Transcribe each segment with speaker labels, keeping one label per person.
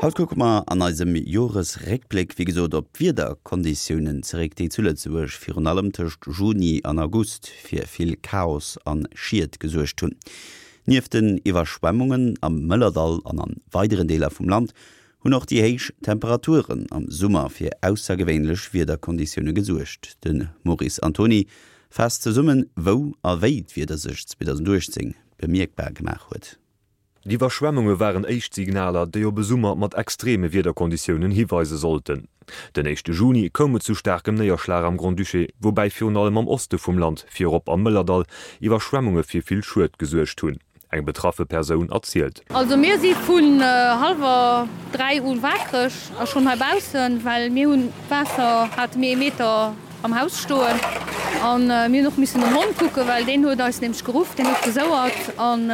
Speaker 1: Haut kucke mer an eisem Joresréckbléck wéi gesot op d'Wiederkonditiounen zeréck, déi zu Lëtzebuerg virun allem tëscht Juni an August fir vill Chaos an Schied gesuergt hunn. Nieft den Iwwerschwemmungen am Mëllerdall an an weideren Deeler vum Land hunn och déi héich Temperaturen am Summer fir aussergewéinlech Wiederkonditioune gesuergt. De Maurice Antoni faasst zesummen, wou a wéi d'Wieder sech 2018 bemierkbar gemaach huet.
Speaker 2: D'Iwwerschwemmunge waren éischt Signaler, déi op e Summer mat extreme Wiederkonditiounen hiweise sollten. Den éischte Juni koum et zu staarkem Néierschlag am Grand-Duché, woubäi virun allem am Oste vum Land, virop am Mëllerdall, Iwwerschwemmunge fir vill Schued gesuergt hunn. Eng betraffe Persoun erzielt.
Speaker 3: Also mir si vun hallwer 3 u waakreg a schonn hei baussen, well mir hunn d'Waasser hate mir ee Meter am Haus stoen an mir hunn och missen den Hond kucken, well deen huet eis nämlech geruff, deen huet gesouert an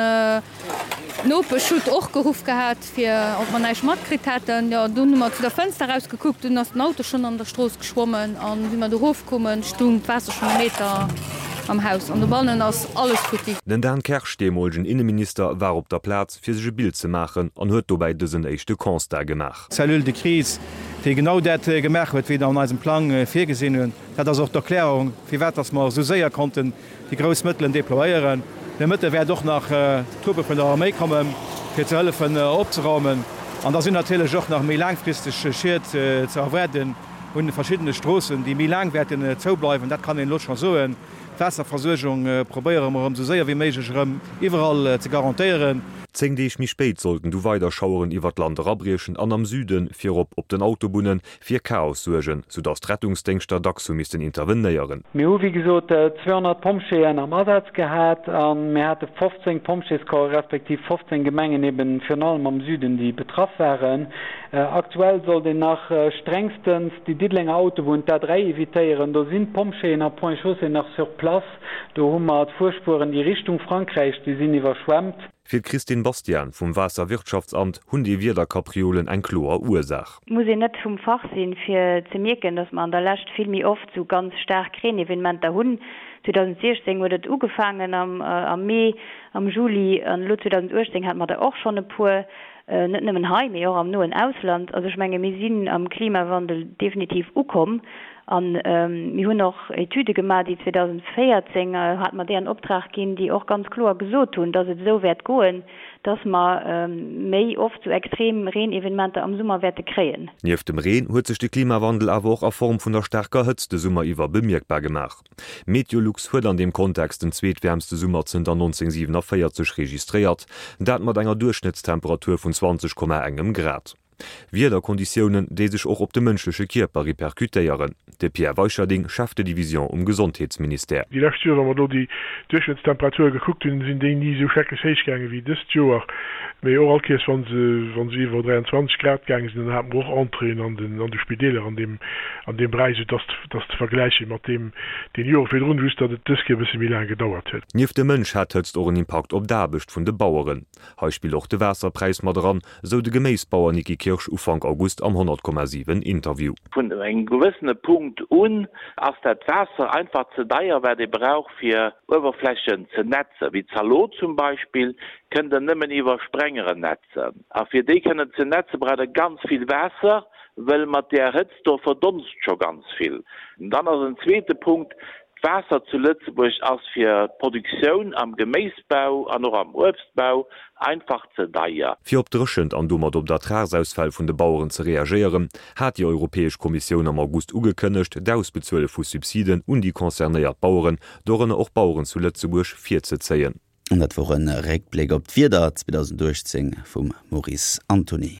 Speaker 3: d'Nopesch hutt och geruff gehat fir ob mer näischt matkritt hätten. Jo dunn hu mer zu der Fënster eraus gekuckt, dunn ass den Auto schonn an der Strooss geschwommen an wéi mer do erof koumen, stung d'Waasser schonn e Meter am Haus an dobannen ass alles futti.
Speaker 2: Den Dan Kersch, deemolegen Inneminister, war op der Plaz, fir sech e Bild ze maachen an huet dobäi dësen éischte Constat gemaach.
Speaker 4: Cellule de crise, déi genau dat gemaach huet, wéi der an eisem Plang virgesinn hunn. Dat ass och d'Erklärung, firwat dass mer esou séier konnten déi grouss Mëttelen déployéieren. De Mëtte wäert och nach Truppe vun der Arméi kommen, fir ze hëllefen opzeraumen. An da sinn natierlech och nach méi laangfristeg Schied ze erwaarden un verschiddene Stroossen, déi méi laang wäerten zoubleiwen. Dat kann een elo scho soen. D'Waasserversuergung probéiere mer erëm esou séier wéi méiglech erëm iwwerall ze garantéieren.
Speaker 2: 10 Deeg méi spéit sollten du weider Schaueren iwwer d'Land erabriechen an am Süden, virop op den Autobunnen, fir Chaos suergen, soudass d'Rettungsdéngschter dacks hu missten intervenéieren.
Speaker 5: Mir hu wéi gesot 200 Pompjeeën am Asaz gehat a mir hate 15 Pompjeescorpse respektiv 15 Gemengen eben virun allem am Süden, déi betraff waren. Aktuell sollt een nach strengstens déi Diddelenger Autobunn, d'A3, evitéieren. Do sinn d'Pompjeeën a Ponts et Chaussées nach sur place. Do hu mer d'Fuerspueren, déi Richtung Frankräich, déi sinn iwwerschwemmt.
Speaker 2: Fir d'Christine Bastian vum Waasserwirtschaftsamt hunn déi Wiederkapriolen eng kloer Ursaach.
Speaker 6: Et muss een net vum Fach sinn, fir ze mierken, datt mer an der Lescht vill méi oft sou ganz staark Reenevenementer hunn. 2016 huet et ugefaangen am Mee, am Juli an elo 2018 hate mer der och schonn e puer, net nëmmen hei, mee och am noen Ausland. Also ech menge mir sinn am Klimawandel definitiv ukomm an mir hunn och Etüde gemaach, déi 2014 hate mer déi an Optrag ginn, déi och ganz kloer gesot hunn, datt et esou wäert goen. dass mer méi oft sou extrem Reenevenementer am Summer wäerte kréien.
Speaker 2: Nieft dem Reen huet sech de Klimawandel awer och a Form vun der staarker Hëtzt de Summer iwwer bemierkbar gemaach. Meteolux huet an deem Kontext den zweetwäermste Summer zënter 1947 registréiert, dat mat enger Duerchschnëttstemperatur vun 20 Komma engem Grad. Wiederkonditiounen, déi sech och op de mënschleche Kierper repercutéieren. De Pierre Weicherding, Chef de Division um Gesondheetsministère.
Speaker 7: Déi lescht Joer, wa mer do déi Duerchschnëttstemperature gekuckt hunn, sinn déi ni esou schrecklech héich gaange wéi dëst Joer. Mee och all Kéiers, wa se, wa se iwwer 23 Grad gaange sinn, dann hate mer och Entréeën an den, an de Spideeler an deem, an deem Beräich, esou dass, dass ze vergläiche mat deem, deem Jore virdrun, just datt et dës Kéier e bësse méi laang gedauert huet.
Speaker 2: Nieft dem Mënsch hat d'Hëtzt och en Impakt op d'Aarbecht vun de Baueren. Hei spillt och de Waasserpräis mat eran, esou de Geméisbauer Niki Kirsch Ufank August am 100,7 Interview.
Speaker 8: Vun engem gewëssene Punkt un ass dat Waasser einfach ze deier, wat ee brauch fir Uewerflächen ze netzen, wéi Zalot zum Beispill, kënnt der nëmmen iwwer Sprengeren netzen. A fir déi kënnen ze netzen, braucht der ganz vill Waasser, wëll mat där Hëtzt do verdonst scho ganz vill. Dann ass en zweete Punkt, D'Waasser zu Lëtzebuerg ass fir d'Produktioun am Geméisbau an och am Uebstbau einfach ze deier.
Speaker 2: Fir op d'Dréchent an domat op d'Ertragsausfäll vun de Baueren ze reagéieren, hat déi Europäesch Kommissioun am August ugekënnegt, d'Ausbezuele vu Subsiden un déi concernéiert Baueren, dorënner och Baueren zu Lëtzebuerg, virzezéien.
Speaker 1: An dat wor e Réckbléck op d'Wieder 2018 vum Maurice Antony.